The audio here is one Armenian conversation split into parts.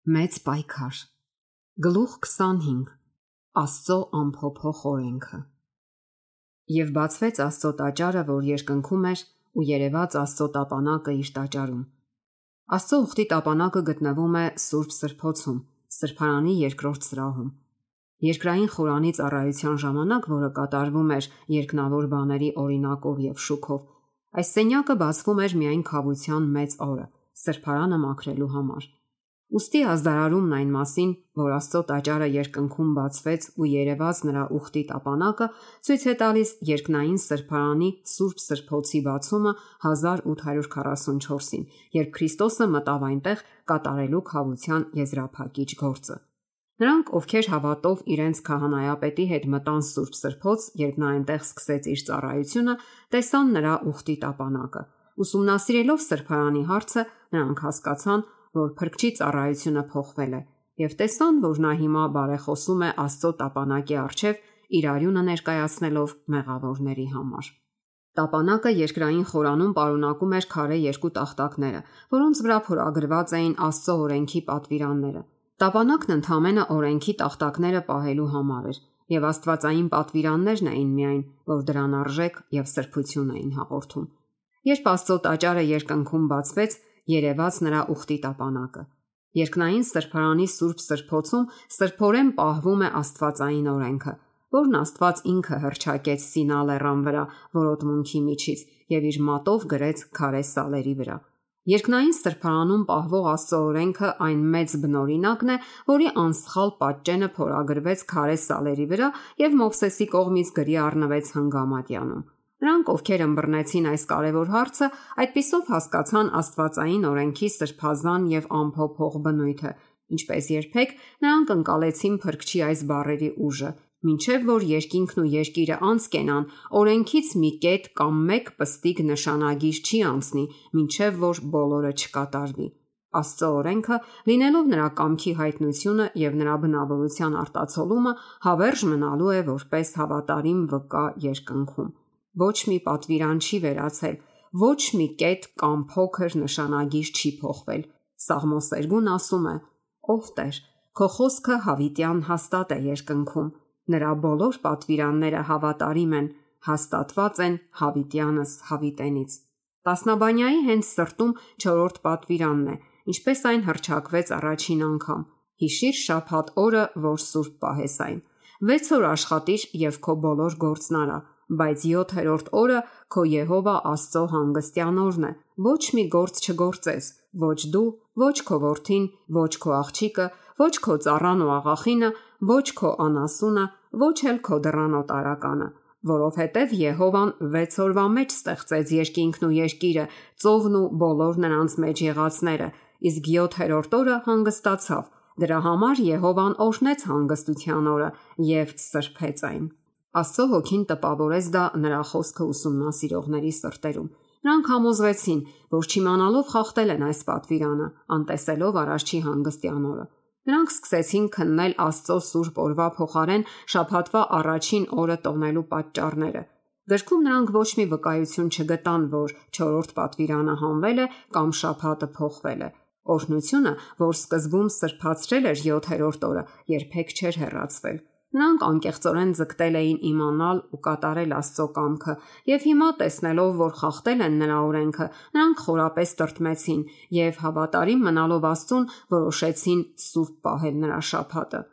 Մեծ պայքար։ Գլուխ 25. Աստծո անփոփոխ օրենքը։ Եվ բացվեց Աստծո տաճարը, որ երկնքում էր, ու երևաց Աստծո տապանակը իր տաճարում։ Աստծո ուխտի տապանակը գտնվում է Սուրբ Սրբոցում, Սրբարանի երկրորդ սրահում։ Երկրային խորանի ծառայության ժամանակ, որը կատարվում էր երկնավոր բաների օրինակով եւ շուքով, այս սենյակը բացվում էր միայն քավության մեծ օրը, սրբարանը մաքրելու համար։ Ուստի ազդարարումն այն մասին, որ Աստծո տաճարը երկնքում բացվեց ու երևաց նրա ուխտի տապանակը, ցույց է տալիս երկնային սրբարանի Սուրբ Սրբոցի բացումը 1844-ին, երբ Քրիստոսը մտավ այնտեղ կատարելու քավության եզրափակիչ գործը։ Նրանք, ովքեր հավատով իրենց քահանայապետի հետ մտան Սուրբ Սրբոց, երբ նա այնտեղ սկսեց իր ծառայությունը, տեսան նրա ուխտի տապանակը։ Ուսումնասիրելով սրբարանի հարցը, նրանք հասկացան, որ Փրկչի ծառայությունը փոխվել է, եւ տեսան, որ նա հիմա բարեխոսում է Աստծո տապանակի առջև իր արյունը ներկայացնելով մեղավորների համար։ Տապանակը երկրային խորանում պարունակում էր քարե երկու տախտակները, որոնց վրա փորագրված էին Աստծո օրենքի պատվիրանները։ Տապանակն ընդհանրապես օրենքի տախտակները պահելու համար էր, եւ աստվածային պատվիրաններն էին միայն, որ դրան արժեք եւ սրբություն էին հաղորդում։ Երբ Աստծո տաճարը երկնքում բացվեց, երևաց նրա ուխտի տապանակը։ Երկնային սրբարանի Սուրբ Սրբոցում սրբորեն պահվում է աստվածային օրենքը, որն Աստված ինքը հռչակեց Սինա լեռան վրա որոտմունքի միջից եւ իր մատով գրեց քարե սալերի վրա։ Երկնային սրբարանում պահվող Աստծո օրենքը այն մեծ բնօրինակն է, որի անսխալ պատճենը փորագրվեց քարե սալերի վրա եւ Մովսեսի կողմից գրի առնվեց հնգամատյանում։ Նրանք, ովքեր ըմբռնեցին այս կարևոր հարցը, այդպիսով հասկացան աստվածային օրենքի սրբազան եւ անփոփոխ բնույթը, ինչպես երբեք նրանք ընկալեցին Փրկչի այս բառերի ուժը, մինչև որ երկինքն ու երկիրը անցկենան, օրենքից մի կետ կամ մեկ պստիկ նշանագիր չի անցնի, մինչև որ բոլորը չկատարվի։ Աստծո օրենքը, լինելով նրա կամքի հայտնությունը եւ նրա բնավորության արտացոլումը, հավերժ մնալու է որպես հավատարիմ վկա երկնքում։ Ոչ մի պատվիրան չի վերացել, ոչ մի կետ կամ փոքր նշանագիր չի փոխվել։ Սաղմոս 2-ն ասում է. «Ով Տեր, քո խոսքը հավիտյան հաստատ է երկնքում, նրա բոլոր պատվիրանները հավատարիմ են, հաստատված են հավիտյանս հավիտենից»։ Տասնաբանյայի հենց սրտում 4-րդ պատվիրանն է, ինչպես այն հռչակվեց առաջին անգամ. «Հիշիր շաբաթ օրը, որ սուրբ պահես այն։ 6 օր աշխատիր եւ քո բոլոր գործն արա, բայց 7-րդ օրը քո Եհովա Աստծո հանգստյան օրն է, ոչ մի գործ չգործես, ոչ դու, ոչ քո որդին, ոչ քո աղջիկը, ոչ քո ծառան ու աղախինը, ոչ քո անասունը, ոչ էլ քո դռանոտարականը, որովհետև Եհովան 6 օրվա մեջ ստեղծեց երկինքն ու երկիրը, ծովն ու բոլոր նրանց մեջ եղածները, իսկ 7-րդ օրը հանգստացավ։ Դրա համար Եհովան օրհնեց հանգստության օրը եւ սրբեց այն»։ Աստծո հոգին տպավորեց դա նրա խոսքը ուսումնասիրողների սրտերում։ Նրանք համոզվեցին, որ չիմանալով խախտել են այս պատվիրանը, անտեսելով առաջի հանգստյան օրը։ Նրանք սկսեցին քննել Աստծո սուրբ օրվա փոխարեն շաբաթվա առաջին օրը տոնելու պատճառները։ Գրքում նրանք ոչ մի վկայություն չգտան, որ 4-րդ պատվիրանը հանվել է կամ շաբաթը փոխվել է։ Օրհնությունը, որ սկզբում սրբացրել էր 7-րդ օրը, երբեք չէր հեռացվել։ Նրանք անկեղծորեն ձգտել էին իմանալ ու կատարել Աստծո կամքը, եւ հիմա տեսնելով, որ խախտել են նրա օրենքը, նրանք խորապես տրտմեցին եւ հավատարիմ մնալով Աստծուն, որոշեցին սուրբ պահել նրա շաբաթը։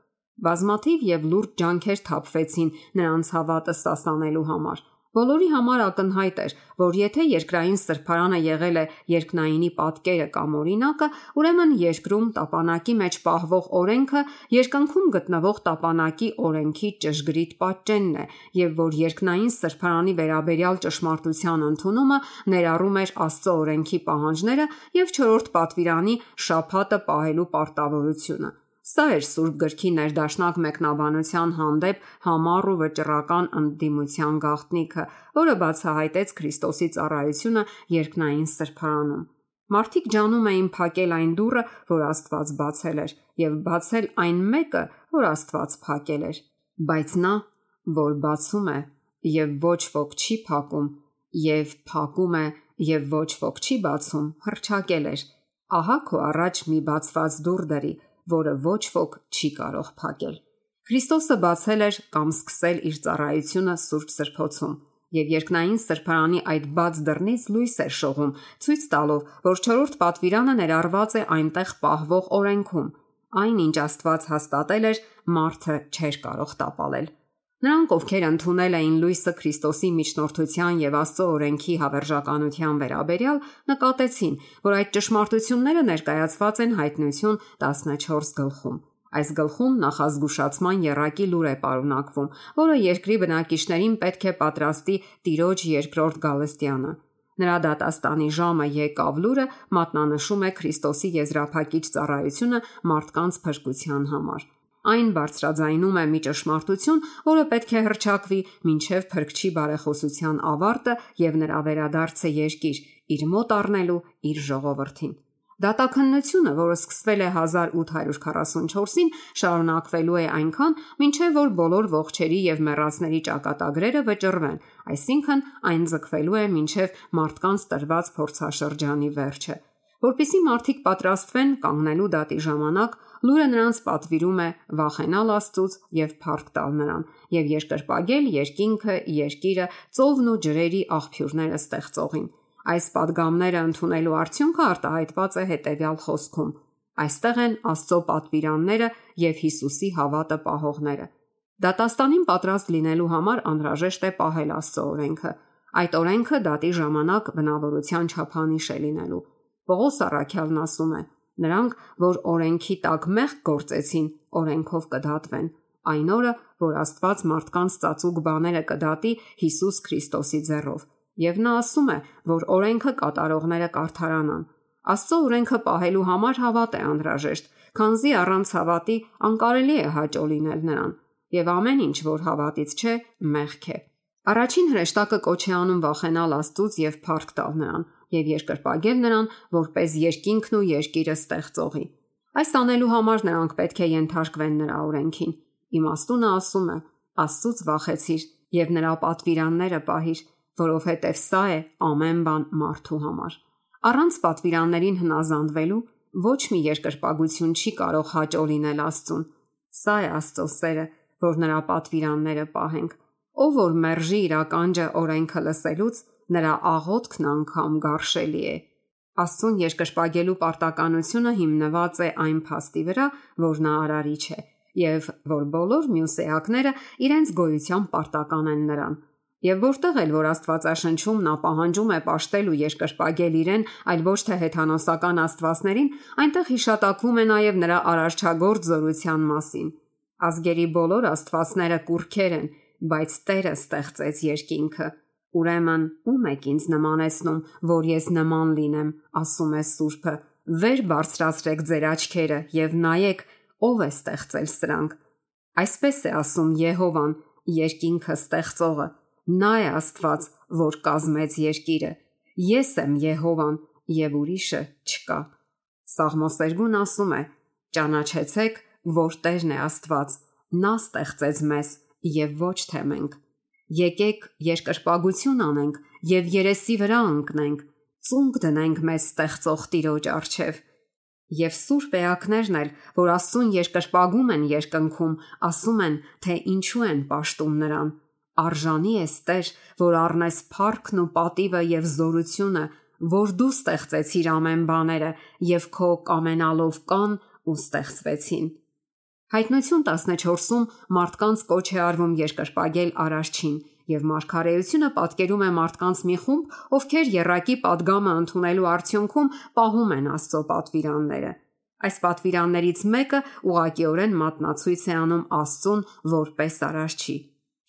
Բազմաթիվ եւ լուրջ ջանքեր թափվեցին նրանց հավատը սասանելու համար։ Բոլորի համար ակնհայտ էր, որ եթե երկրային սրբարանը եղել է երկնայինի պատկերը կամ օրինակը, ուրեմն երկրում տապանակի մեջ պահվող օրենքը երկնքում գտնվող տապանակի օրենքի ճշգրիտ պատճենն է, եւ որ երկնային սրբարանի վերաբերյալ ճշմարտության ընդունումը ներառում էր Աստծո օրենքի պահանջները եւ 4-րդ պատվիրանի շաբաթը պահելու պարտավորությունը։ Սա էր Սուրբ գրքի ներդաշնակ մեկնաբանության հանդեպ համառ ու վճռական ընդդիմության գաղտնիքը, որը բացահայտեց Քրիստոսի ծառայությունը երկնային սրբարանում։ Մարդիկ ջանում էին փակել այն դուռը, որ Աստված բացել էր, եւ բացել այն մեկը, որ Աստված փակել էր։ Բայց նա, որ բացում է եւ ոչ ոք չի փակում, եւ փակում է եւ ոչ ոք չի բացում, հռչակել էր. «Ահա քո առաջ մի բացված դուռ դրի, որը ոչ ոք չի կարող փակել։ Քրիստոսը բացել էր կամ սկսել իր ծառայությունը Սուրբ Սրբոցում, եւ երկնային սրբարանի այդ բաց դռնից լույս էր շողում, ցույց տալով, որ 4-րդ պատվիրանը ներառված է այնտեղ պահվող օրենքում։ Այն, ինչ Աստված հաստատել էր, մարդը չէր կարող տապալել։ Նրանք, ովքեր ընդունել էին լույսը Քրիստոսի միջնորդության եւ Աստծո օրենքի հավերժականության վերաբերյալ, նկատեցին, որ այդ ճշմարտությունները ներկայացված են Հայտնություն 14 գլխում։ Այս գլխում նախազգուշացման եռակի լուր է պարունակվում, որը երկրի բնակիչներին պետք է պատրաստի Տիրոջ երկրորդ գալստյանը։ Նրա դատաստանի ժամը եկավ լուրը մատնանշում է Քրիստոսի եզրափակիչ ծառայությունը մարդկանց փրկության համար։ Այն բարձրաձայնում է մի ճշմարտություն, որը պետք է հռչակվի մինչև Փրկչի բարեխոսության ավարտը եւ նրա վերադարձը երկիր, իր մոտ առնելու իր ժողովրդին։ Դատաքննությունը, որը սկսվել է 1844-ին, շարունակվելու է այնքան, մինչև որ բոլոր ողջերի եւ մեռածների ճակատագրերը վճռվեն, այսինքն այն ձգվելու է մինչև մարդկանց տրված փորձաշրջանի վերջը։ Որպեսզի մարդիկ պատրաստվեն կանգնելու դատի ժամանակ, լուրը նրանց պատվիրում է վախենալ Աստծուց եւ փառք տալ նրան եւ երկրպագել երկինքը, երկիրը, ծովն ու ջրերի աղբյուրները ստեղծողին։ Այս падգամները ընդունելու արդյունքը արտահայտված է հետևյալ խոսքում. այստեղ են Աստծո պատվիրանները եւ Հիսուսի հավատը պահողները։ Դատաստանին պատրաստ լինելու համար անհրաժեշտ է պահել Աստծո օրենքը։ Այդ օրենքը դատի ժամանակ բնավորության չափանիշ է լինելու։ Պողոս առաքյալն ասում է. նրանք, որ օրենքի տակ մեղք գործեցին, օրենքով կդատվեն։ Այն օրը, որ Աստված մարդկանց ծածուկ բաները կդատի Հիսուս Քրիստոսի ձեռով։ Եվ նա ասում է, որ օրենքը կատարողները կարդարանան։ Աստծո օրենքը պահելու համար հավատ է անհրաժեշտ, քանզի առանց հավատի անկարելի է հաճո լինել նրան, եւ ամեն ինչ, որ հավատից չէ, մեղք է։ Առաջին հրեշտակը կոչ է անում վախենալ Աստծուց եւ փառք տալ նրան եւ երկրպագել նրան, որպես երկինքն ու երկիրը ստեղծողի։ Այս անելու համար նրանք պետք է ենթարկվեն նրա օրենքին։ Իմաստունը ասում է. Աստծուց վախեցիր եւ նրա պատվիրանները պահիր, որովհետև սա է ամեն բան մարդու համար։ Առանց պատվիրաններին հնազանդվելու ոչ մի երկրպագություն չի կարող հաճո լինել Աստծուն։ Սա է Աստծո սերը, որ նրա պատվիրանները պահենք։ Ով որ մերժի իր ականջը օրենքը լսելուց, նրա աղոթքն անգամ գարշելի է։ Աստծուն երկրպագելու պարտականությունը հիմնված է այն փաստի վրա, որ նա արարիչ է, եւ որ բոլոր մյուս էակները իրենց գոյությամբ պարտական են նրան։ Եվ որտեղ էլ որ Աստվածաշնչում նա պահանջում է պաշտել ու երկրպագել իրեն, այլ ոչ թե հեթանոսական աստվածներին, այնտեղ հիշատակվում է նաև նրա արարչագործ զորության մասին։ Ազգերի բոլոր աստվածները կուռքեր են, բայց Տերը ստեղծեց երկինքը։ Ուրեմն ում եք ինձ նմանեցնում, որ ես նման լինեմ, ասում է Սուրբը։ Վեր բարձրացրեք ձեր աչքերը եւ նայեք, ով է ստեղծել սրանք։ Այսպես է ասում Եհովան, երկինքը ստեղծողը։ Նա է Աստված, որ կազմեց երկիրը։ Ես եմ Եհովան եւ ուրիշը չկա։ Սաղմոս 2-ն ասում է. ճանաչեցեք, որ Տերն է Աստված, նա ստեղծեց մեզ եւ ոչ թե մենք։ Եկեք երկրպագություն անենք եւ երեսի վրա ընկնենք, ծունկ դնենք մեզ ստեղծող Տիրոջ առջև։ Եվ սուրբ էակներն էլ, որ Աստծուն երկրպագում են երկնքում, ասում են, թե ինչու են պաշտում նրան։ Արժանի ես Տեր, որ առնես փառքն ու պատիվը եւ զորությունը, որ դու ստեղծեցիր ամեն բաները եւ քո կամենալով կան ու ստեղծվեցին։ Հայտնություն 14-ում մարդկանց կոչ է արվում երկրպագել Արարչին եւ մարգարեությունը պատկերում է մարդկանց մի խումբ, ովքեր եռակի падգամը ընդունելու արդյունքում պահում են Աստծո պատվիրանները։ Այս պատվիրաններից մեկը ուղղակիորեն մատնացույց է անում Աստծուն որպես Արարչի։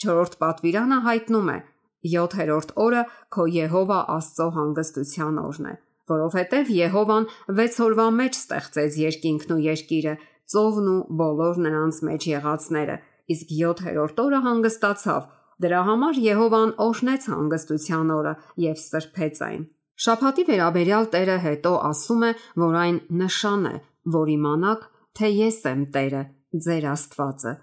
4-րդ պատվիրանը հայտնում է. 7-րդ օրը քո Եհովա Աստծո հանգստության օրն է, որովհետև Եհովան 6 օրվա մեջ ստեղծեց երկինքն ու երկիրը, ծովն ու բոլոր նրանց մեջ եղածները, իսկ 7-րդ օրը հանգստացավ։ Դրա համար Եհովան օրհնեց հանգստության օրը եւ սրբեց այն։ Շաբաթի վերաբերյալ Տերը հետո ասում է, որ այն նշան է, որ իմանաք, թե ես եմ Տերը, ձեր Աստվածը,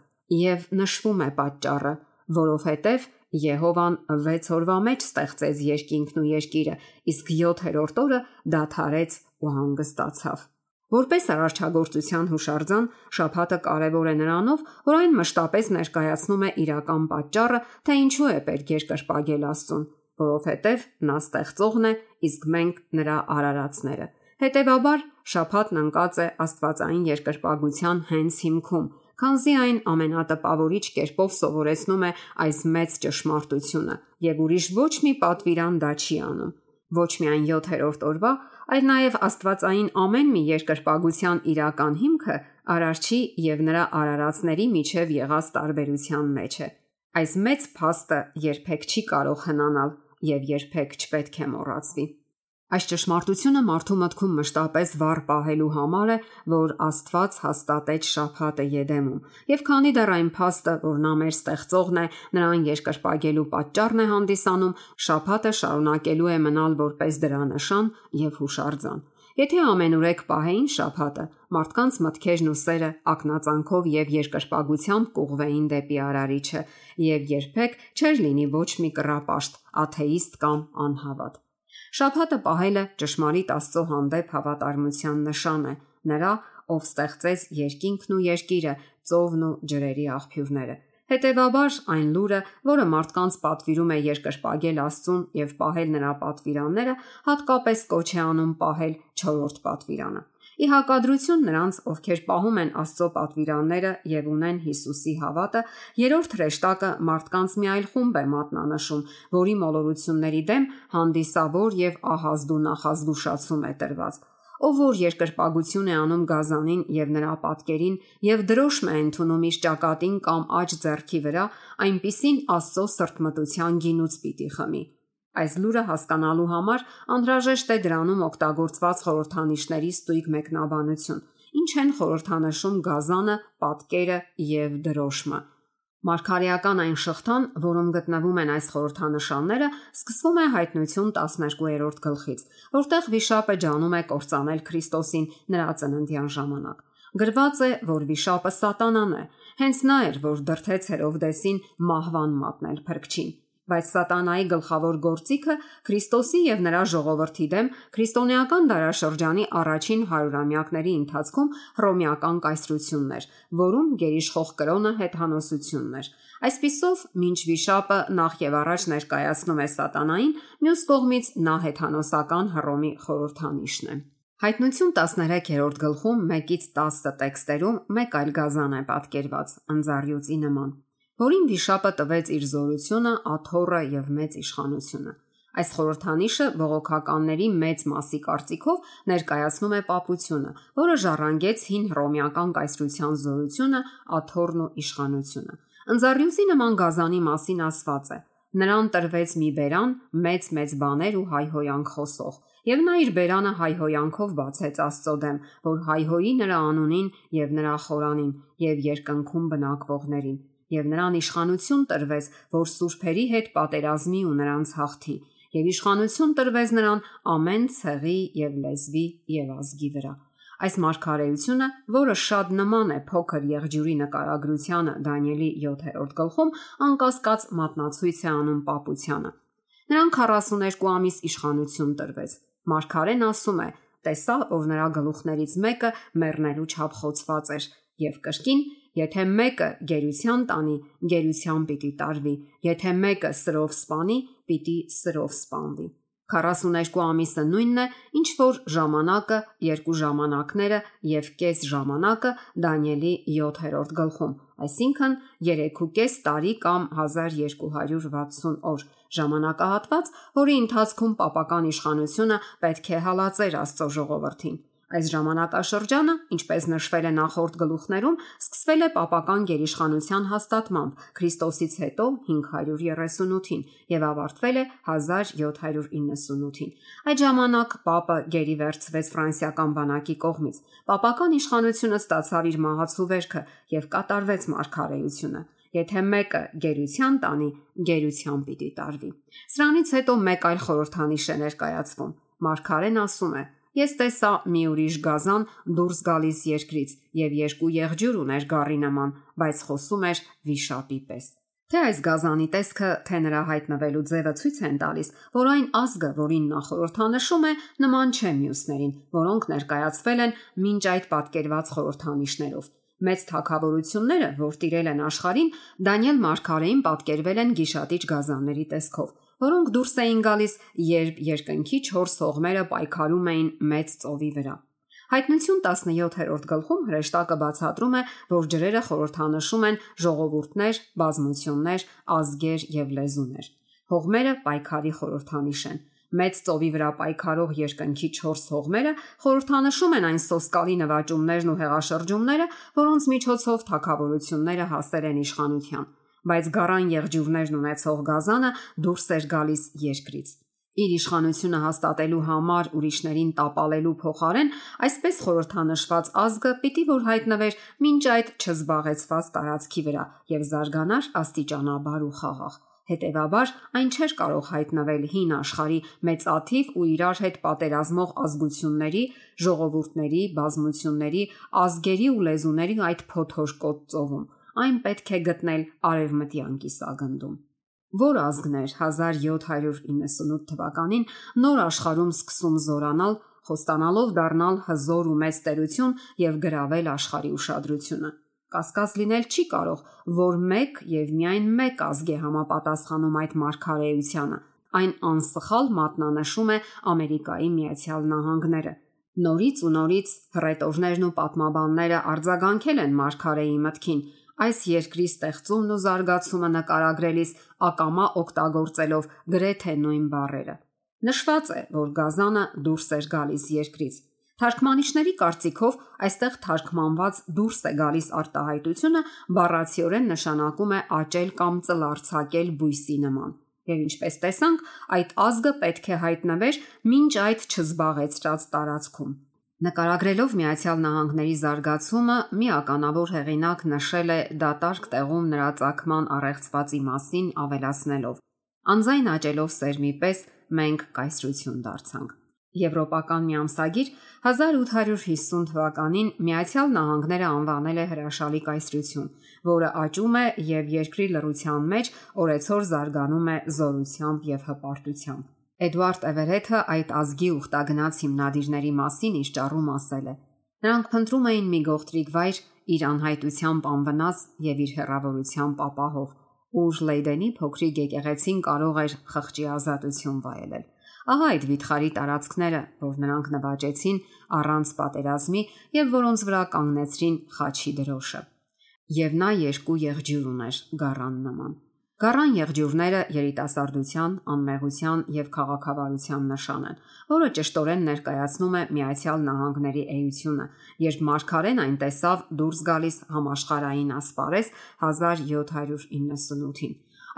եւ նշվում է պատճառը, որովհետև Եհովան 6 օրվա մեջ ստեղծեց երկինքն ու երկիրը, իսկ 7-րդ օրը դադարեց ու հանգստացավ։ Որպես արարչագործության հուշարձան, շաբաթը կարևոր է նրանով, որ այն մշտապես ներկայացնում է իրական պատճառը, թե ինչու է պետք երկրպագել Աստծուն, որովհետև նա ստեղծողն է, իսկ մենք նրա արարածները։ Հետևաբար, շաբաթն ընկած է աստվածային երկրպագության հենց հիմքում, քանզի այն ամենատպավորիչ կերպով սովորեցնում է այս մեծ ճշմարտությունը, եւ ուրիշ ոչ մի պատվիրան դա չի անում։ Ոչ միայն 7-րդ օրվա, այլ նաև աստվածային ամեն մի երկրպագության իրական հիմքը արարչի եւ նրա արարածների միջև եղած տարբերության մեջ է։ Այս մեծ փաստը երբեք չի կարող հնանալ եւ երբեք չպետք է մոռացվի։ Այս ճշմարտությունը մարդու մտքում մշտապես վառ պահելու համար է, որ Աստված հաստատեց շաբաթը Եդեմում, եւ քանի դեռ այն փաստը, որ նա մեր ստեղծողն է, նրան երկրպագելու պատճառն է հանդիսանում, շաբաթը շարունակելու է մնալ որպես դրա նշան եւ հուշարձան։ Եթե ամենուրեք պահեին շաբաթը, մարդկանց մտքերն ու սերը ակնածանքով եւ երկրպագությամբ կուղվեին դեպի Արարիչը, եւ երբեք չէր լինի ոչ մի կռապաշտ, աթեիստ կամ անհավատ։ Շաբաթը պահելը ճշմարիտ Աստծո հանդեպ հավատարմության նշան է, նրա, ով ստեղծեց երկինքն ու երկիրը, ծովն ու ջրերի աղբյուրները։ Հետևաբար այն լուրը, որը մարդկանց պատվիրում է երկրպագել Աստծուն եւ պահել նրա պատվիրանները, հատկապես կոչ է անում պահել 4-րդ պատվիրանը։ Ի հակադրություն նրանց, ովքեր պահում են Աստծո պատվիրանները եւ ունեն Հիսուսի հավատը, երրորդ հրեշտակը մարդկանց մի այլ խումբ է մատնանշում, որի մոլորությունների դեմ հանդիսավոր եւ ահազդու նախազգուշացում է տրված։ Ով որ երկրպագություն է անում գազանին եւ նրա պատկերին եւ դրոշմ է ընդունում իր ճակատին կամ աջ ձեռքի վրա, այնպիսին Աստծո սրտմտության գինուց պիտի խմի։ Այս լուրը հասկանալու համար անհրաժեշտ է դրանում օգտագործված խորհրդանիշների ստույգ մեկնաբանություն։ Ինչ են խորհրդանշում գազանը, պատկերը եւ դրոշմը։ Մարգարեական այն շղթան, որում գտնվում են այս խորհրդանշանները, սկսվում է Հայտնություն 12-րդ գլխից, որտեղ վիշապը ջանում է կործանել Քրիստոսին նրա ծննդյան ժամանակ։ Գրված է, որ վիշապը Սատանան է, հենց նա էր, որ դրդեց Հերովդեսին մահվան մատնել փրկչին։ Բայց Սատանայի գլխավոր գործիքը Քրիստոսի եւ նրա ժողովրդի դեմ քրիստոնեական դարաշրջանի առաջին 100-ամյակների ընթացքում հռոմեական կայսրությունն էր, որում գերիշխող կրոնը հեթանոսությունն էր։ Այսպիսով, մինչ վիշապը նախ եւ առաջ ներկայացնում է Սատանային, մյուս կողմից նա հեթանոսական Հռոմի խորհրդանիշն է։ Հայտնություն 13-րդ գլխում 1-ից 10 տեքստերում մեկ այլ գազան է պատկերված ընձառյուծի նման, որին վիշապը տվեց իր զորությունը, աթոռը եւ մեծ իշխանությունը։ Այս խորհրդանիշը բողոքականների մեծ մասի կարծիքով ներկայացնում է պապությունը, որը ժառանգեց հին հռոմեական կայսրության զորությունը, աթոռն ու իշխանությունը։ Ընձառյուծի նման գազանի մասին ասված է. նրան տրվեց մի բերան, մեծ բաներ ու հայհոյանք խոսող, եւ նա իր բերանը հայհոյանքով բացեց Աստծո դեմ, որ հայհոյի նրա անունին եւ նրա խորանին եւ երկնքում բնակվողներին, եւ նրան իշխանություն տրվեց, որ սուրբերի հետ պատերազմի ու նրանց հաղթի, եւ իշխանություն տրվեց նրան ամեն ցեղի եւ լեզվի եւ ազգի վրա։ Այս մարգարեությունը, որը շատ նման է փոքր եղջյուրի նկարագրությանը Դանիելի 7-րդ գլխում, անկասկած մատնացույց է անում պապությանը։ Նրան 42 ամիս իշխանություն տրվեց։ Մարգարեն ասում է. տեսա, որ նրա գլուխներից մեկը մեռնելու չափ խոցված էր, եւ կրկին, եթե մեկը գերության տանի, գերության պիտի տարվի, եթե մեկը սրով սպանի, պիտի սրով սպանվի։ 42 ամիսը նույնն է, ինչ որ ժամանակը, երկու ժամանակները եւ կես ժամանակը Դանիելի 7-րդ գլխում, այսինքն 3.5 տարի կամ 1260 օր, ժամանակահատված, որի ընթացքում պապական իշխանությունը պետք է հալածեր Աստծո ժողովրդին։ Այս ժամանակաշրջանը, ինչպես նշվել է նախորդ գլուխներում, սկսվել է պապական գերիշխանության հաստատմամբ Քրիստոսից հետո 538-ին եւ ավարտվել է 1798-ին։ Այդ ժամանակ պապը գերի վերցվեց ֆրանսիական բանակի կողմից։ Պապական իշխանությունը ստացավ իր մահացու վերքը եւ կատարվեց մարգարեությունը։ Եթե մեկը գերության տանի, գերության պիտի տարվի։ Սրանից հետո մեկ այլ խորհրդանիշ է ներկայացվում։ Մարգարեն ասում է. Ես տեսա մի ուրիշ գազան դուրս գալիս երկրից եւ երկու եղջյուր ուներ գառի նման, բայց խոսում էր վիշապի պես։ Թե այս գազանի տեսքը, թե նրա հայտնվելու ձևը ցույց են տալիս, որ այն ազգը, որին նա խորհրդանշում է, նման չէ մյուսներին, որոնք ներկայացվել են մինչ այդ պատկերված խորհրդանիշներով։ Մեծ թագավորությունները, որ տիրել են աշխարհին, Դանիել մարգարեին պատկերվել են գիշատիչ գազանների տեսքով, որոնք դուրս էին գալիս, երբ երկնքի 4 հողմերը պայքարում էին մեծ ծովի վրա։ Հայտնություն 17-րդ գլխում հրեշտակը բացատրում է, որ ջրերը խորհրդանշում են ժողովուրդներ, բազմություններ, ազգեր եւ լեզուներ։ Հողմերը պայքարի խորհրդանիշ են։ Մեծ ծովի վրա պայքարող երկնքի 4 հողմերը խորհրդանշում են այն սոսկալի նվաճումներն ու հեղաշրջումները, որոնց միջոցով թագավորությունները հասել են իշխանության, բայց գառան եղջյուրներն ունեցող գազանը դուրս էր գալիս երկրից։ Իր իշխանությունը հաստատելու համար ուրիշներին տապալելու փոխարեն այսպես խորհրդանշված ազգը պիտի որ հայտնվեր մինչ այդ չզբաղեցված տարածքի վրա եւ զարգանար աստիճանաբար ու խաղաղ։ Հետևաբար այն չէր կարող հայտնվել հին աշխարհի մեծաթիվ ու իրար հետ պատերազմող ազգությունների, ժողովուրդների, բազմությունների, ազգերի ու լեզուների այդ փոթորկոտ ծովում։ Այն պետք է գտնել արևմտյան կիսագնդում։ Որ ազգներ 1798 թվականին նոր աշխարհում սկսում զորանալ, խոստանալով դառնալ հզոր ու մեծ տերություն եւ գրավել աշխարհի ուշադրությունը։ Կասկած լինել չի կարող, որ մեկ եւ միայն մեկ ազգ է համապատասխանում այդ մարգարեությանը։ Այն անսխալ մատնանշում է Ամերիկայի Միացյալ Նահանգները։ Նորից ու նորից հռետորներն ու պատմաբանները արձագանքել են մարգարեի մտքին, այս երկրի ստեղծումն ու զարգացումը նկարագրելիս ակամա օգտագործելով գրեթե նույն բառերը։ Նշված է, որ գազանը դուրս էր գալիս երկրից։ Թարգմանիչների կարծիքով այստեղ թարգմանված դուրս է գալիս արտահայտությունը բառացիորեն նշանակում է աճել կամ ծլարձակել բույսի նման։ Եվ ինչպես տեսանք, այդ ազգը պետք է հայտնվեր մինչ այդ չզբաղեցրած տարածքում։ Նկարագրելով Միացյալ Նահանգների զարգացումը, մի ականավոր հեղինակ նշել է դատարկ տեղում նրա ծագման առեղծվածի մասին ավելացնելով. Անձայն աճելով սերմի պես մենք կայսրություն դարձանք։ Եվրոպական մի ամսագիր 1850 թվականին Միացյալ Նահանգները անվանել է հրաշալի կայսրություն, որը աճում է եւ երկրի լռության մեջ օրեցօր զարգանում է զորությամբ եւ հպարտությամբ։ Էդվարդ Էվերեթը այդ ազգի ուխտագնաց հիմնադիրների մասին իր ճառում ասել է. նրանք փնտրում էին մի գողտրիկ վայր իր անհայտությամբ անվնաս եւ իր հեռավորությամբ ապահով, ուր Լեյդենի փոքրիկ եկեղեցին կարող էր խղճի ազատություն վայելել։ Ահա այդ վիթխարի տարածքները, որ նրանք նվաճեցին առանց պատերազմի եւ որոնց վրա կանգնեցրին խաչի դրոշը։ Եվ նա երկու եղջյուր ուներ գառան նման։ Գառան եղջյուրները երիտասարդության, անմեղության եւ քաղաքավարության նշան են, որը ճշտորեն ներկայացնում է Միացյալ Նահանգների էությունը, երբ մարգարեն այն տեսավ դուրս գալիս համաշխարհային ասպարեզ 1798-ին։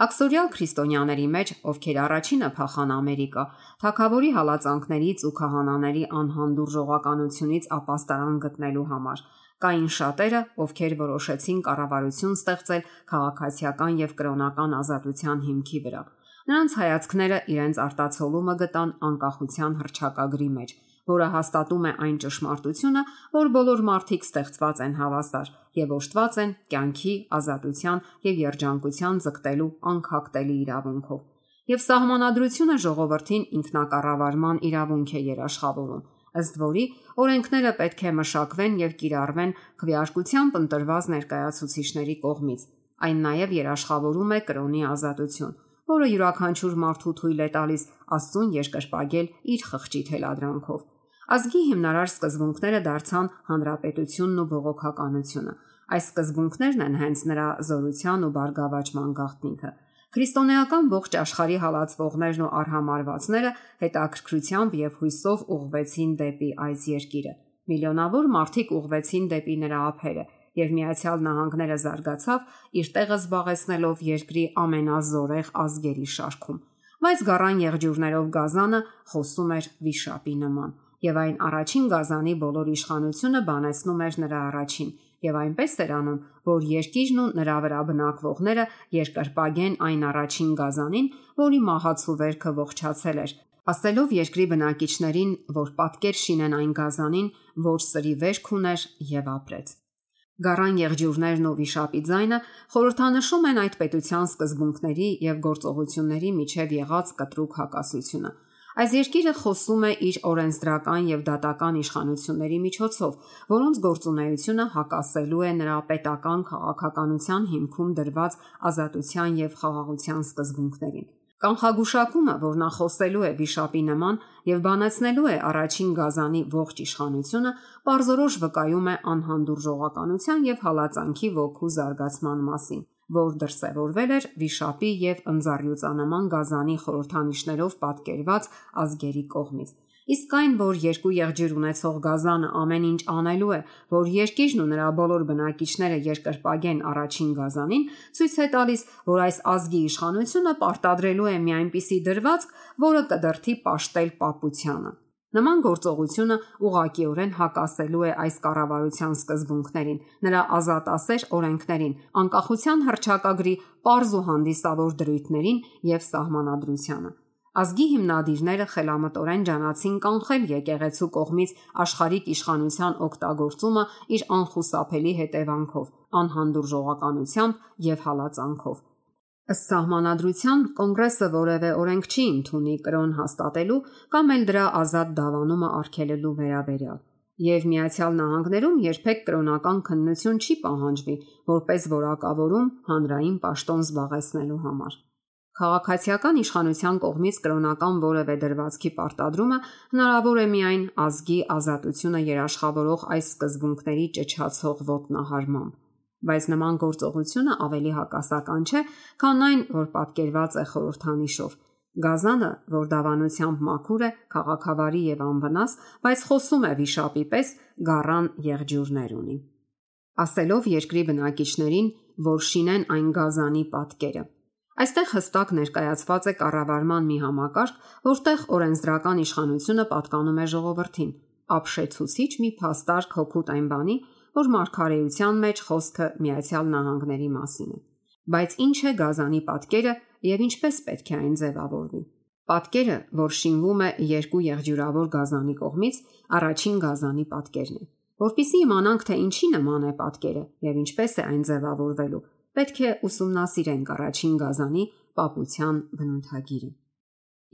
Աքսորիալ քրիստոնյաների մեջ, ովքեր առաջինը փախան Ամերիկա, թագավորի հալածանքներից ու քահանաների անհանդուրժողականությունից ապաստարան գտնելու համար, կային շատերը, ովքեր որոշեցին կառավարություն ստեղծել քաղաքացիական եւ կրոնական ազատության հիմքի վրա։ Նրանց հայացքները իրենց արտացոլումը գտան անկախության հռչակագրի մեջ, որը հաստատում է այն ճշմարտությունը, որ բոլոր մարդիկ ստեղծված են հավասար եւ օժտված են կյանքի, ազատության եւ երջանկության ձգտելու անքակտելի իրավունքով։ Եվ սահմանադրությունը ժողովրդին ինքնակառավարման իրավունք է երաշխավորում, ըստ որի օրենքները պետք է մշակվեն եւ կիրառվեն քվեարկությամբ ընտրված ներկայացուցիչների կողմից։ Այն նաեւ երաշխավորում է կրոնի ազատություն, որը յուրաքանչյուր մարդու թույլ է տալիս Աստծուն երկրպագել իր խղճի թելադրանքով։ Ազգի հիմնարար սկզբունքները դարձան հանրապետությունն ու բողոքականությունը։ Այս սկզբունքներն են հենց նրա զորության ու բարգավաճման գաղտնիքը։ Քրիստոնեական ողջ աշխարհի հալածվողներն ու արհամարվածները հետաքրքրությամբ եւ հույսով ուղղվեցին դեպի այս երկիրը։ Միլիոնավոր մարդիկ ուղղվեցին դեպի նրա ափերը, եւ Միացյալ Նահանգները զարգացավ իր տեղը զբաղեցնելով երկրի ամենազորեղ ազգերի շարքում։ Բայց գառան եղջյուրներով գազանը խոսում էր վիշապի նման, եւ այն առաջին գազանի բոլոր իշխանությունը բանեցնում էր նրա առաջին, եւ այնպես էր անում, որ երկիրն ու նրա վրա բնակվողները երկրպագեն այն առաջին գազանին, որի մահացու վերքը ողջացել էր, ասելով երկրի բնակիչներին, որ պատկեր շինեն այն գազանին, որ սրի վերք ուներ եւ ապրեց։ Գառան եղջյուրներն ու վիշապի ձայնը խորհրդանշում են այդ պետության սկզբունքների եւ գործողությունների միջև եղած կտրուկ հակասությունը։ Այս երկիրը խոսում է իր օրենսդրական եւ դատական իշխանությունների միջոցով, որոնց գործունեությունը հակասելու է նրա պետական քաղաքականության հիմքում դրված ազատության եւ խաղաղության սկզբունքներին։ Կանխագուշակումը, որ նա խոսելու է վիշապի նման եւ բանացնելու է առաջին գազանի ողջ իշխանությունը, պարզորոշ վկայում է անհանդուրժողականության եւ հալածանքի ոգու զարգացման մասին, որ դրսևորվել էր վիշապի եւ ընձառյուծանման գազանի խորհրդանիշներով պատկերված ազգերի կողմից։ Իսկ այն, որ երկու եղջյուր ունեցող գազանը ամեն ինչ անելու է, որ երկիրն ու նրա բոլոր բնակիչները երկրպագեն առաջին գազանին, ցույց է տալիս, որ այս ազգի իշխանությունը պարտադրելու է մի այնպիսի դրվածք, որը կդրթի պաշտել պապությանը։ Նման գործողությունը ուղղակիորեն հակասելու է այս կառավարության սկզբունքներին, նրա ազատասեր օրենքներին, անկախության հռչակագրի պարզ ու հանդիսավոր դրույթներին եւ սահմանադրությանը։ Ազգի հիմնադիրները խելամտորեն ջանացին կանխել եկեղեցու կողմից աշխարհիկ իշխանության օգտագործումը իր անխուսափելի հետևանքով, անհանդուրժողականությամբ եւ հալածանքով։ Ըստ սահմանադրության կոնգրեսը որևէ օրենք չի ընդունի կրոն հաստատելու կամ էլ դրա ազատ դավանումը արգելելու վերաբերյալ։ Եվ Միացյալ Նահանգներում երբեք կրոնական քննություն չի պահանջվի, որպես որակավորում հանրային պաշտոն զբաղեցնելու համար։ Քաղաքացիական իշխանության կողմից կրոնական որևէ դրվածքի պարտադրումը հնարավոր է միայն ազգի ազատությունը երաշխավորող այս սկզբունքների ճչացող ոտնահարմամբ, բայց նման գործողությունը ավելի հակասական չէ, քան այն, որ պատկերված է խորհրդանիշով։ Գազանը, որ դավանությամբ մաքուր է, քաղաքավարի եւ անվնաս, բայց խոսում է վիշապի պես, գառան եղջյուրներ ունի, ասելով երկրի բնակիչներին, որ շինեն այն գազանի պատկերը։ Այստեղ հստակ ներկայացված է կառավարման մի համակարգ, որտեղ օրենսդրական իշխանությունը պատկանում է ժողովրդին, ապշեցուցիչ մի փաստարկ հօգուտ այն բանի, որ մարգարեության մեջ խոսքը Միացյալ Նահանգների մասին է։ Բայց ինչ է գազանի պատկերը եւ ինչպես պետք է այն ձևավորվի։ Պատկերը, որ շինվում է երկու եղջյուրավոր գազանի կողմից, առաջին գազանի պատկերն է։ Որպեսզի իմանանք, թե ինչի նման է պատկերը եւ ինչպես է այն ձևավորվելու, պետք է ուսումնասիրենք առաջին գազանի պապության բնութագիրը։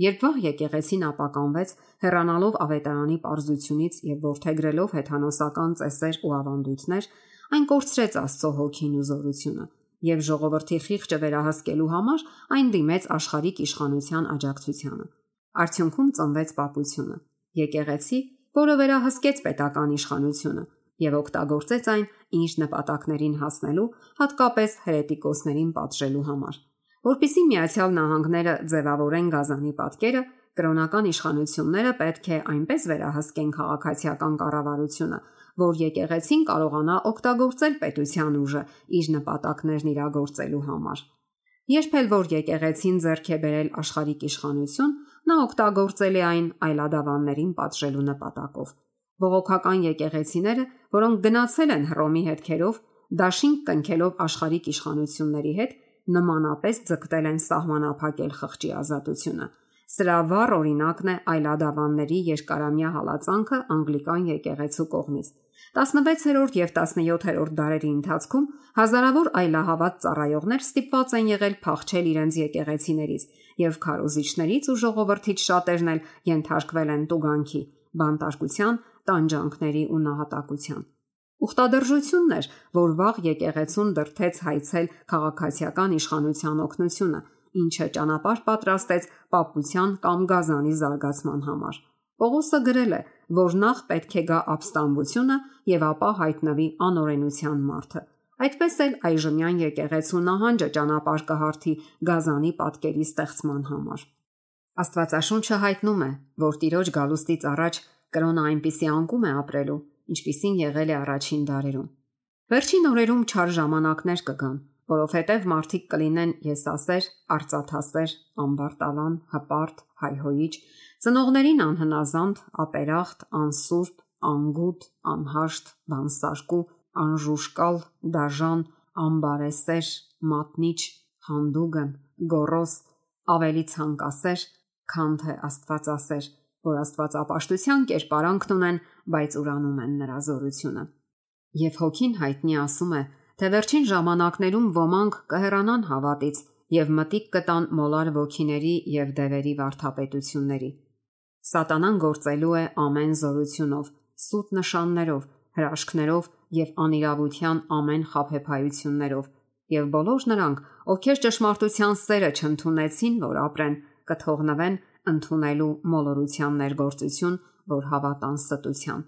Երբ վաղ եկեղեցին ապականվեց, հեռանալով ավետարանի պարզությունից եւ որդեգրելով հեթանոսական ծեսեր ու ավանդույթներ, այն կորցրեց Աստծո հոգին ու զորությունը եւ ժողովրդի խիղճը վերահսկելու համար այն դիմեց աշխարհիկ իշխանության աջակցությանը։ Արդյունքում ծնվեց պապությունը, եկեղեցի, որը վերահսկեց պետական իշխանությունը եւ օգտագործեց այն իր նպատակներին հասնելու, հատկապես հերետիկոսներին պատժելու համար։ Որպեսզի Միացյալ Նահանգները ձևավորեն գազանի պատկերը, կրոնական իշխանությունները պետք է այնպես վերահսկեն քաղաքացիական կառավարությունը, որ եկեղեցին կարողանա օգտագործել պետության ուժը իր նպատակներն իրագործելու համար։ Երբ էլ որ եկեղեցին ձեռք է բերել աշխարհիկ իշխանություն, նա օգտագործել է այն այլադավաններին պատժելու նպատակով։ Բողոքական եկեղեցիները, որոնք գնացել են Հռոմի հետքերով, դաշինք կնքելով աշխարհիկ իշխանությունների հետ, նմանապես ձգտել են սահմանափակել խղճի ազատությունը։ Սրա վառ օրինակն է այլադավանների երկարամյա հալածանքը անգլիկան եկեղեցու կողմից։ 16-րդ եւ 17-րդ դարերի ընթացքում հազարավոր այլահավատ ծառայողներ ստիպված են եղել փախչել իրենց եկեղեցիներից, եւ քարոզիչներից ու ժողովրդից շատերն էլ ենթարկվել են տուգանքի, բանտարկության, տանջանքների ու նահատակության։ Ուխտադրժությունն էր, որ վաղ եկեղեցուն դրթեց հայցել քաղաքացիական իշխանության օգնությունը, ինչը ճանապարհ պատրաստեց պապության կամ գազանի զարգացման համար։ Պողոսը գրել է, որ նախ պետք է գա ապստամբությունը եւ ապա հայտնվի անօրենության մարդը։ Այդպես էլ այժմյան եկեղեցու նահանջը ճանապարհ կհարթի գազանի պատկերի ստեղծման համար։ Աստվածաշունչը հայտնում է, որ Տիրոջ գալուստից առաջ կրոնը այնպիսի անկում է ապրելու, ինչպիսին եղել է առաջին դարերում։ Վերջին օրերում չար ժամանակներ կգան, որովհետև մարդիկ կլինեն եսասեր, արծաթասեր, ամբարտավան, հպարտ, հայհոյիչ, ծնողներին անհնազանդ, ապերախտ, անսուրբ, անգութ, անհաշտ, բանսարկու, անժուշկալ, դաժան, ամբարեսեր, մատնիչ, հանդուգն, գոռոզ, ավելի ցանկասեր, քան թե աստվածասեր, որ աստվածապաշտության կերպարանքն ունեն, բայց ուրանում են նրա զորությունը։ Եվ Հոգին հայտնի ասում է, թե վերջին ժամանակներում ոմանք կհեռանան հավատից եւ մտիկ կտան մոլար ոգիների եւ դևերի վարդապետությունների։ Սատանան գործելու է ամեն զորությունով, սուտ նշաններով, հրաշքներով եւ անիրավության ամեն խաբեբայություններով, եւ բոլոր նրանք, ովքեր ճշմարտության սերը չընդունեցին, որ ապրեն, կթողնվեն ընդունելու մոլորության ներգործություն, որ հավատան ստության։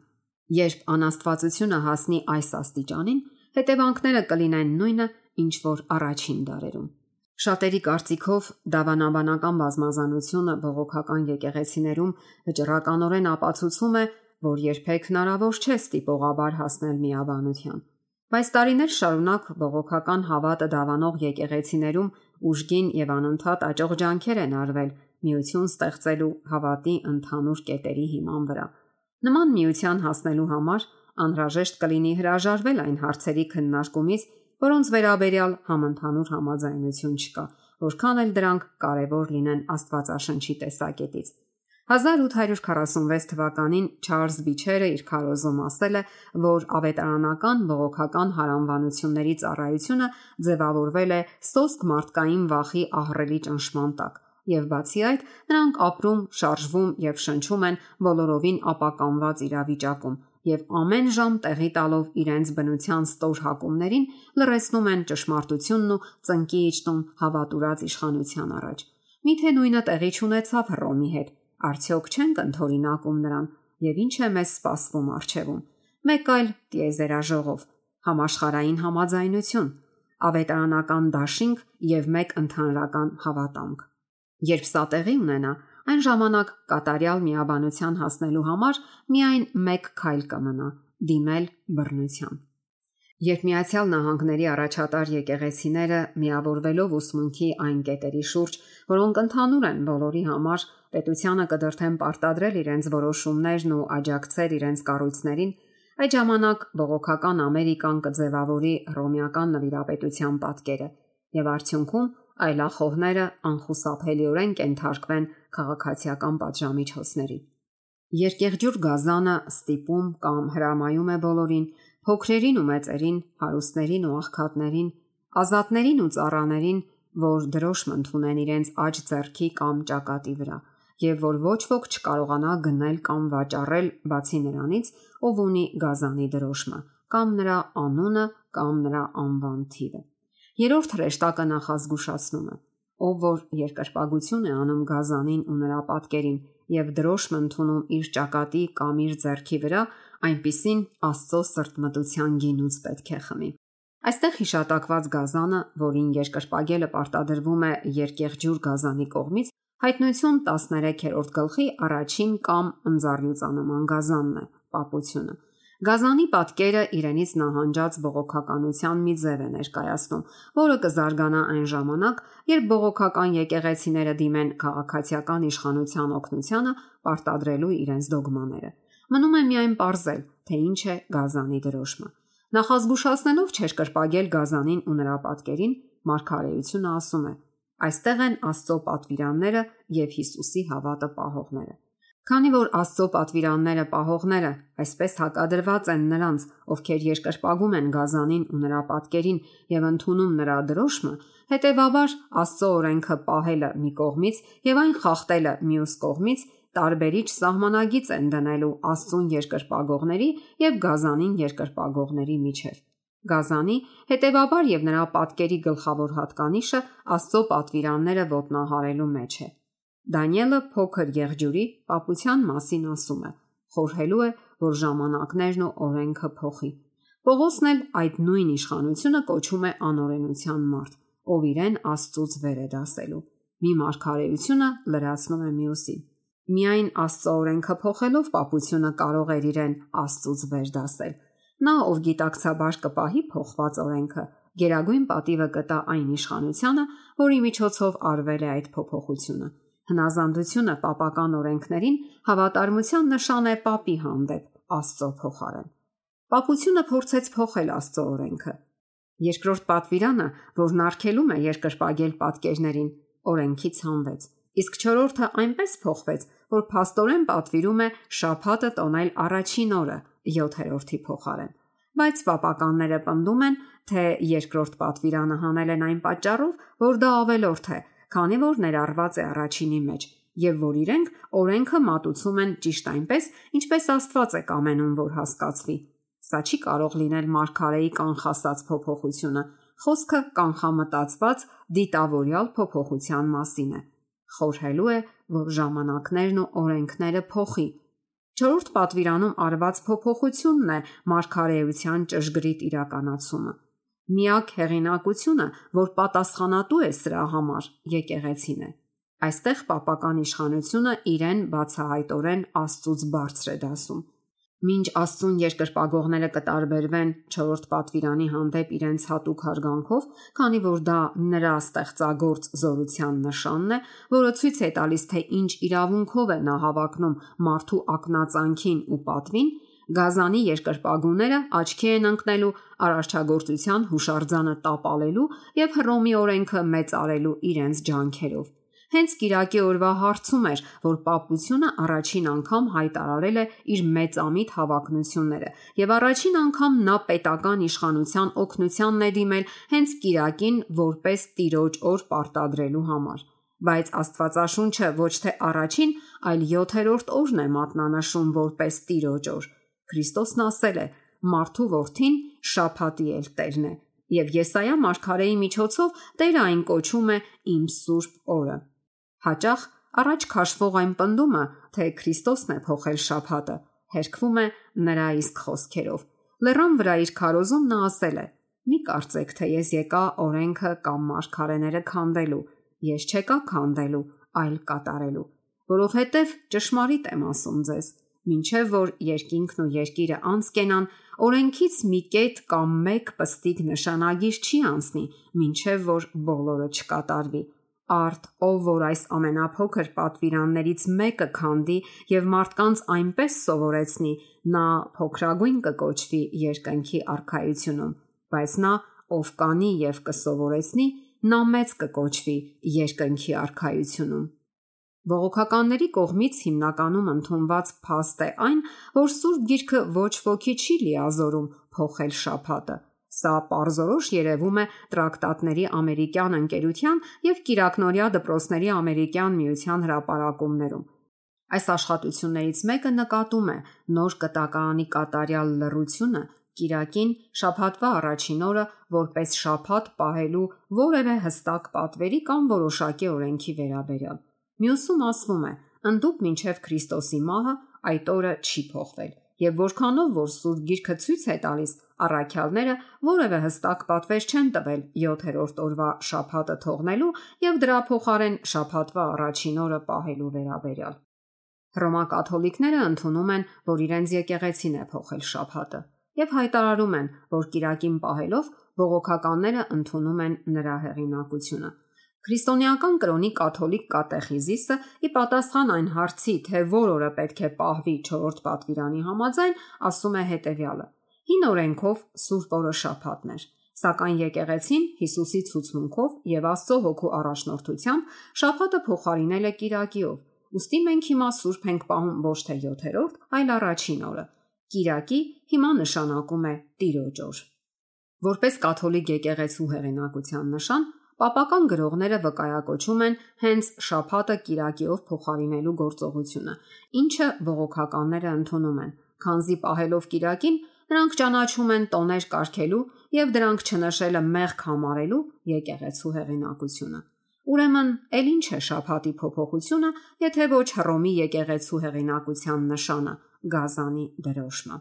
Երբ անաստվածությունը հասնի այս աստիճանին, հետևանքները կլինեն նույնը, ինչ որ առաջին դարերում։ Շատերի կարծիքով դավանաբանական բազմազանությունը բողոքական եկեղեցիներում վճռականորեն ապացուցում է, որ երբեք հնարավոր չէ ստիպողաբար հասնել միաբանության։ Բայց տարիներ շարունակ բողոքական հավատը դավանող եկեղեցիներում ուժգին եւ անընդհատ աճող ջանքեր են արվել միություն ստեղծելու հավատի ընդհանուր կետերի հիման վրա։ Նման միության հասնելու համար անհրաժեշտ կլինի հրաժարվել այն հարցերի քննարկումից, որոնց վերաբերյալ համընդհանուր համաձայնություն չկա, որքան էլ դրանք կարևոր լինեն Աստվածաշնչի տեսակետից։ 1846 թվականին Չարլզ Բիչերը իր քարոզում ասել է, որ ավետարանական բողոքական հարանվանությունների ծառայությունը ձևավորվել է սոսկ մարդկային վախի ահռելի ճնշման տակ, եւ բացի այդ, նրանք ապրում, շարժվում եւ շնչում են բոլորովին ապականված իրավիճակում եւ ամեն ժամ տեղի տալով իրենց բնության ստոր հակումներին լրացնում են ճշմարտությունն ու ծնկի իջնում հավատուրած իշխանության առաջ։ Միթե նույնը տեղի չունեցավ Հռոմի հետ։ Արդյոք չենք ընդօրինակում նրան եւ ինչ է մեզ սպասվում առջևում։ Մեկ այլ տիեզերաժողով, համաշխարհային համաձայնություն, ավետարանական դաշինք եւ մեկ ընդհանրական հավատամք։ Երբ սա տեղի ունենա, այն ժամանակ կատարյալ միաբանության հասնելու համար միայն մեկ քայլ կմնա՝ դիմել բռնության։ Երբ Միացյալ Նահանգների առաջատար եկեղեցիները միավորվելով ուսմունքի այն կետերի շուրջ, որոնք ընդհանուր են բոլորի համար, պետությանը կդրթեն պարտադրել իրենց որոշումներն ու աջակցել իրենց կառույցներին, այդ ժամանակ բողոքական Ամերիկան կձևավորի հռոմեական նվիրապետության պատկերը եւ արդյունքում այլախոհները անխուսափելիորեն կենթարկվեն քաղաքացիական պատժամիջոցների։ Երկեղջյուր գազանը ստիպում կամ հրամայում է բոլորին, փոքրերին ու մեծերին, հարուստներին ու աղքատներին, ազատներին ու ծառաներին, որ դրոշմ ընդունեն իրենց աջ ձեռքի կամ ճակատի վրա, եւ որ ոչ ոք չկարողանա գնել կամ վաճառել բացի նրանից, ով ունի գազանի դրոշմը, կամ նրա անունը կամ նրա անվան թիվը։ Երրորդ հրեշտակը նախազգուշացնում է. ով որ երկրպագություն է անում գազանին ու նրա պատկերին եւ դրոշմ ընդունում իր ճակատի կամ իր ձեռքի վրա, այնպիսին Աստծո սրտմտության գինուց պետք է խմի։ Այստեղ հիշատակված գազանը, որին երկրպագելը պարտադրվում է երկեղջյուր գազանի կողմից, հայտնություն 13-րդ գլխի առաջին կամ ընձառյուծանման գազանն է, պապությունը։ Գազանի պատկերը իրենից նահանջած բողոքականության մի ձև է ներկայացնում, որը կզարգանա այն ժամանակ, երբ բողոքական եկեղեցիները դիմեն քաղաքացիական իշխանության օգնությանը պարտադրելու իրենց դոգմաները։ Մնում է միայն պարզել, թե ինչ է գազանի դրոշմը։ Նախազգուշացնելով չերկրպագել գազանին ու նրա պատկերին, Մարգարեությունը ասում է. այստեղ են Աստծո պատվիրանները եւ Հիսուսի հավատը պահողները։ Քանի որ Աստծո պատվիրանները պահողները այսպես հակադրված են նրանց, ովքեր երկրպագում են գազանին ու նրա պատկերին եւ ընդունում նրա դրոշմը, հետեւաբար Աստծո օրենքը պահելը մի կողմից եւ այն խախտելը մյուս կողմից տարբերիչ սահմանագիծ են դնելու Աստծուն երկրպագողների եւ գազանին երկրպագողների միջեւ։ Գազանի, հետեւաբար եւ նրա պատկերի գլխավոր հատկանիշը Աստծո պատվիրանները ոտնահարելու մեջ է։ Դանիելը փոքր եղջյուրի պապության մասին ասում է. խորհելու է, որ ժամանակներն ու օրենքը փոխի։ Պողոսն էլ այդ նույն իշխանությունը կոչում է անօրենության մարդ, ով իրեն Աստծուց վեր է դասելու։ Մի մարգարեությունը լրացնում է մյուսին։ Միայն Աստծո օրենքը փոխելով պապությունը կարող էր իրեն Աստծուց վեր դասել։ Նա, ով գիտակցաբար կպահի փոխված օրենքը, գերագույն պատիվը կտա այն իշխանությանը, որի միջոցով արվել է այդ փոփոխությունը։ Հնազանդությունը պապական օրենքներին հավատարմության նշան է պապի հանդեպ Աստծո փոխարեն։ Պապությունը փորձեց փոխել Աստծո օրենքը։ Երկրորդ պատվիրանը, որն արգելում է երկրպագել պատկերներին, օրենքից հանվեց, իսկ չորրորդը այնպես փոխվեց, որ փաստորեն պատվիրում է շաբաթը տոնել առաջին օրը 7-րդի փոխարեն։ Բայց պապականները պնդում են, թե երկրորդ պատվիրանը հանել են այն պատճառով, որ դա ավելորդ է, քանի որ ներառված է առաջինի մեջ, եւ որ իրենք օրենքը մատուցում են ճիշտ այնպես, ինչպես Աստված է կամենում, որ հասկացվի։ Սա չի կարող լինել մարգարեի կանխասած փոփոխությունը, խոսքը կանխամտածված դիտավորյալ փոփոխության մասին է։ Խորհելու է, որ ժամանակներն ու օրենքները փոխի։ Չորրորդ պատվիրանում արված փոփոխությունն է մարգարեության ճշգրիտ իրականացումը։ Միակ հեղինակությունը, որ պատասխանատու է սրա համար, եկեղեցին է։ Այստեղ պապական իշխանությունը իրեն բացահայտորեն Աստծուց բարձր է դասում։ Մինչ Աստծուն երկրպագողները կտարբերվեն չորրորդ պատվիրանի հանդեպ իրենց հատուկ հարգանքով, քանի որ դա նրա ստեղծագործ զորության նշանն է, որը ցույց է տալիս, թե ինչ իրավունքով է նա հավակնում մարդու ակնածանքին ու պատվին, Գազանի երկրպագուները աչքի են ընկնելու արարչագործության հուշարձանը տապալելու եւ Հռոմի օրենքը մեծարելու իրենց ջանքերով։ Հենց Կիրակի օրվա հարցում էր, որ պապությունը առաջին անգամ հայտարարել է իր մեծամիտ հավակնությունները եւ առաջին անգամ նա պետական իշխանության օգնությանն է դիմել հենց Կիրակին որպես տիրոջ օր պարտադրելու համար։ Բայց Աստվածաշունչը ոչ թե առաջին, այլ 7-րդ օրն է մատնանշում որպես տիրոջ օր։ Քրիստոսն ասել է. «Մարդու որդին շաբաթի էլ Տերն է», եւ Եսայա մարգարեի միջոցով Տերը այն կոչում է «Իմ սուրբ օրը»։ Հաճախ առաջ քաշվող այն պնդումը, թե Քրիստոսն է փոխել շաբաթը, հերքվում է նրա իսկ խոսքերով։ Լեռան վրա իր քարոզում նա ասել է. «Մի կարծեք, թե ես եկա օրենքը կամ մարգարեները քանդելու, ես չեկա քանդելու, այլ կատարելու, որովհետև ճշմարիտ եմ ասում ձեզ, մինչև որ երկինքն ու երկիրը անցկենան, օրենքից մի կետ կամ մեկ պստիկ նշանագիր չի անցնի, մինչև որ բոլորը չկատարվի։ Արդ ով որ այս ամենափոքր պատվիրաններից մեկը քանդի եւ մարդկանց այնպես սովորեցնի, նա փոքրագույն կկոչվի երկնքի արքայությունում, բայց նա ով կանի եւ կսովորեցնի, նա մեծ կկոչվի երկնքի արքայությունում»։ Բողոքականների կողմից հիմնականում ընդունված փաստ է այն, որ Սուրբ Գիրքը ոչ ոքի չի լիազորում փոխել շաբաթը։ Սա պարզորոշ երևում է տրակտատների ամերիկյան ընկերության եւ կիրակնօրյա դպրոցների ամերիկյան միության հրապարակումներում։ Այս աշխատություններից մեկը նկատում է նոր կտակարանի կատարյալ լռությունը Կիրակին շաբաթվա առաջին օրը որպես շաբաթ պահելու որևէ հստակ պատվերի կամ որոշակի օրենքի վերաբերյալ։ Մյուսում ասվում է. ընդդուք մինչև Քրիստոսի մահը այդ օրը չի փոխվել, եւ որքանով որ Սուրբ Գիրքը ցույց է տալիս, առաքյալները որևէ հստակ պատվեր չեն տվել 7-րդ օրվա շաբաթը թողնելու եւ դրա փոխարեն շաբաթվա առաջին օրը պահելու վերաբերյալ։ Հռոմակաթոլիկները ընդունում են, որ իրենց եկեղեցին է փոխել շաբաթը եւ հայտարարում են, որ Կիրակին պահելով բողոքականները ընդունում են նրա հեղինակությունը։ Քրիստոնեական կրոնի կաթոլիկ կատեխիզիսը ի պատասխան այն հարցի, թե որ օրը պետք է պահվի չորրորդ պատվիրանի համաձայն, ասում է հետևյալը. Հին օրենքով Սուրբ օրը շաբաթն էր, սակայն եկեղեցին Հիսուսի ցուցմունքով եւ Աստծո հոգու առաջնորդությամբ շաբաթը փոխարինել է Կիրակիով։ Ոստի մենք հիմա Սուրբ ենք պահում ոչ թե 7-րդ, այլ առաջին օրը։ Կիրակի հիմա նշանակում է Տիրոջ օր։ Որպես կաթոլիկ եկեղեցու հեղինակության նշան, պապական գրողները վկայակոչում են հենց շաբաթը Կիրակիով փոխարինելու գործողությունը, ինչը բողոքականները ընդունում են, քանզի պահելով Կիրակին նրանք ճանաչում են տոներ կարգելու եւ դրանք չնշելը մեղք համարելու եկեղեցու հեղինակությունը։ Ուրեմն, ել ինչ է շաբաթի փոփոխությունը, եթե ոչ Հռոմի եկեղեցու հեղինակության նշանը՝ Գազանի դրոշմը։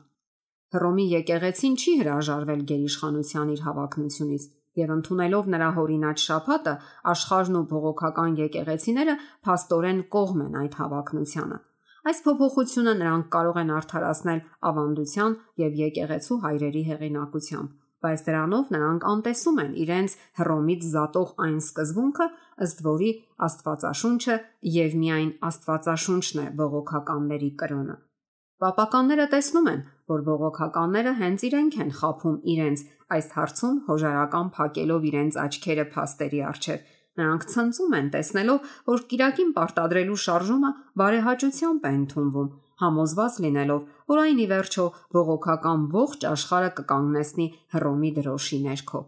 Հռոմի եկեղեցին չի հրաժարվել գերիշխանության իր հավակնությունից եւ ընդունելով նրա հորինած շաբաթը, աշխարհն ու բողոքական եկեղեցիները փաստորեն կողմ են այդ հավակնությանը։ Այս փոփոխությունը նրանք կարող են արդարացնել ավանդության եւ եկեղեցու հայրերի հեղինակությամբ, բայց դրանով նրանք անտեսում են իրենց Հռոմից զատող այն սկզբունքը, ըստ որի Աստվածաշունչը եւ միայն Աստվածաշունչն է բողոքականների կրոնը։ Պապականները տեսնում են, որ բողոքականները հենց իրենք են խաբում իրենց այս հարցում հոժարական փակելով իրենց աչքերը փաստերի առջև։ Նրանք ցնծում են տեսնելով, որ Կիրակին պարտադրելու շարժումը բարեհաճությամբ է ընդունվում համոզված լինելով, որ այն ի վերջո բողոքական ողջ աշխարհը կկանգնեցնի Հռոմի դրոշի ներքո։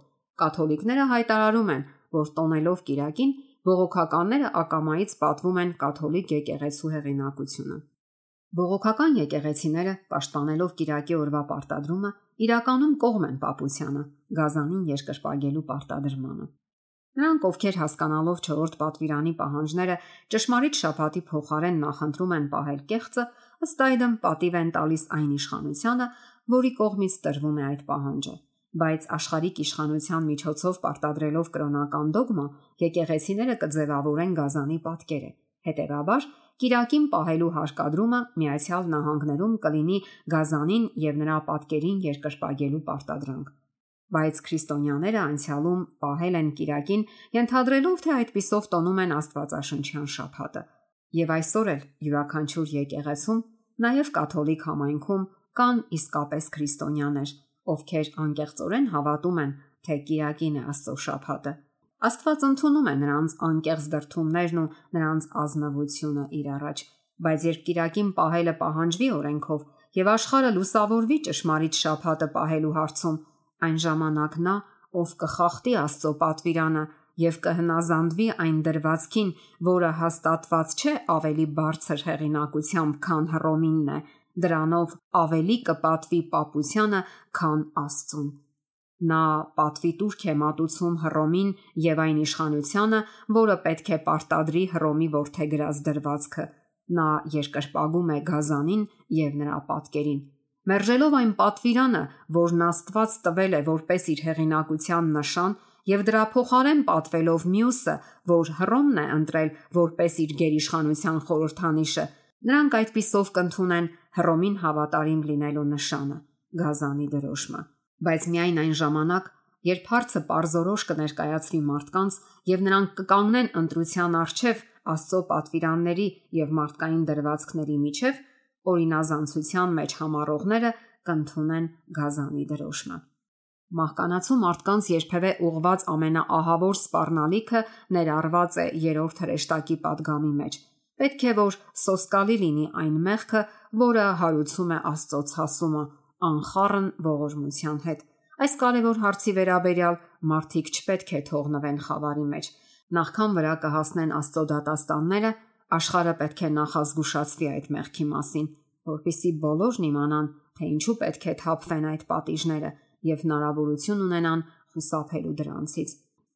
Կաթոլիկները հայտարարում են, որ տոնելով Կիրակին, բողոքականները ակամայից պատվում են կաթոլիկ եկեղեցու հեղինակությունը։ Բողոքական եկեղեցիները, պաշտպանելով Կիրակի օրվա պարտադրումը, իրականում կողմ են պապությանը, Գազանին երկրպագելու պարտադրմանը։ Նրանք, ովքեր հասկանալով 4-րդ պատվիրանի պահանջները ճշմարիտ շաբաթի փոխարեն նախընտրում են պահել կեղծը, ըստ այդմ պատիվ են տալիս այն իշխանությանը, որի կողմից տրվում է այդ պահանջը։ Բայց աշխարհիկ իշխանության միջոցով պարտադրելով կրոնական դոգմա, եկեղեցիները կձևավորեն Գազանի պատկերը։ Հետևաբար, Կիրակին պահելու հարկադրումը Միացյալ Նահանգներում կլինի Գազանին եւ նրա պատկերին երկրպագելու պարտադրանք։ Բայց քրիստոնյաները անցյալում պահել են Կիրակին, ենթադրելով, թե այդպիսով տոնում են Աստվածաշնչյան շաբաթը։ Եվ այսօր էլ յուրաքանչյուր եկեղեցում, նաև կաթոլիկ համայնքում կան իսկապես քրիստոնյաներ, ովքեր անկեղծորեն հավատում են, թե Կիրակին է Աստծո շաբաթը։ Աստված ընդունում է նրանց անկեղծ դրդումներն ու նրանց ազնվությունը իր առաջ, բայց երբ Կիրակին պահելը պահանջվի օրենքով եւ աշխարհը լուսավորվի ճշմարիտ շաբաթը պահելու հարցում, այն ժամանակ նա, ով կխախտի Աստծո պատվիրանը եւ կհնազանդվի այն դրվածքին, որը հաստատված չէ ավելի բարձր հեղինակությամբ, քան Հռոմինն է, դրանով ավելի կպատվի պապությանը, քան Աստծուն։ Նա պատվի տուրք է մատուցում Հռոմին եւ այն իշխանությանը, որը պետք է պարտադրի Հռոմի որդեգրած դրվածքը։ Նա երկրպագում է Գազանին եւ նրա պատկերին, մերժելով այն պատվիրանը, որն Աստված տվել է որպես իր հեղինակության նշան, եւ դրա փոխարեն պատվելով մյուսը, որ Հռոմն է ընտրել որպես իր գերիշխանության խորհրդանիշը, նրանք այդպիսով կընդունեն Հռոմին հավատարիմ լինելու նշանը՝ Գազանի դրոշմը։ Բայց միայն այն ժամանակ, երբ հարցը պարզորոշ կներկայացվի մարդկանց եւ նրանք կկանգնեն ընտրության առջև Աստծո պատվիրանների եւ մարդկային դրվածքների միջև, օրինազանցության մեջ համառողները կընդունեն Գազանի դրոշմը։ Մահկանացու մարդկանց երբևէ ուղված ամենաահավոր սպառնալիքը ներառված է երրորդ հրեշտակի պատգամի մեջ։ Պետք է որ սոսկալի լինի այն մեղքը, որը հարուցում է Աստծո ցասումը, անխառն ողորմության հետ։ Այս կարևոր հարցի վերաբերյալ մարդիկ չպետք է թողնվեն խավարի մեջ։ Նախքան վրա կհասնեն Աստծո դատաստանները, աշխարհը պետք է նախազգուշացվի այդ մեղքի մասին, որպեսզի բոլորն իմանան, թե ինչու պետք է թափվեն այդ պատիժները եւ հնարավորություն ունենան խուսափելու դրանցից։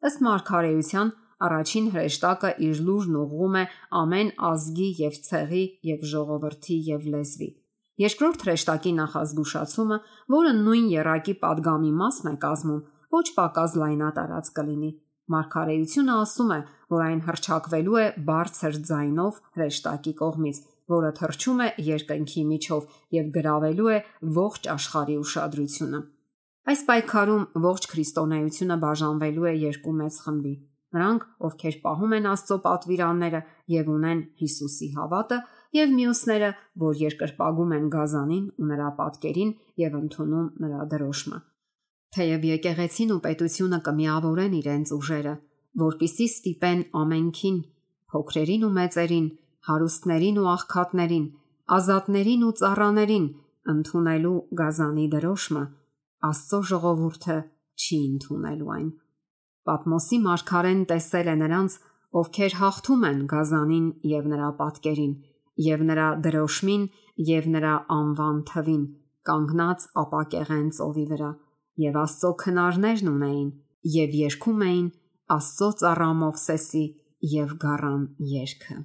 Ըստ մարգարեության, առաջին հրեշտակը իր լուրն ուղղում է ամեն ազգի եւ ցեղի եւ ժողովրդի եւ լեզվի։ Երկրորդ հրեշտակի նախազգուշացումը, որը նույն եռակի պատգամի մասն է կազմում, ոչ պակաս լայնատարած կլինի։ Մարգարեությունը ասում է, որ այն հռչակվելու է բարձր ձայնով հրեշտակի կողմից, որը թռչում է երկնքի միջով եւ գրավելու է ողջ աշխարհի ուշադրությունը։ Այս պայքարում ողջ քրիստոնեությունը բաժանվելու է երկու մեծ խմբի։ Նրանք, ովքեր պահում են Աստծո պատվիրանները եւ ունեն Հիսուսի հավատը, եւ մյուսները, որ երկրպագում են Գազանին ու նրա պատկերին եւ ընդունում նրա դրոշմը։ Թեև եկեղեցին ու պետությունը կմիավորեն իրենց ուժերը, որպիսի ստիպեն ամենքին, փոքրերին ու մեծերին, հարուստներին ու աղքատներին, ազատներին ու ծառաներին ընդունելու Գազանի դրոշմը, Աստծո ժողովուրդը չի ընդունելու այն։ Պատմոսի մարգարեն տեսել է նրանց, ովքեր հաղթում են Գազանին եւ նրա պատկերին, եւ նրա դրոշմին եւ նրա անվան թվին, կանգնած ապակեղեն ծովի վրա, եւ Աստծո քնարներն ունեին եւ երգում էին Աստծո ծառա Մովսեսի եւ գառան երգը։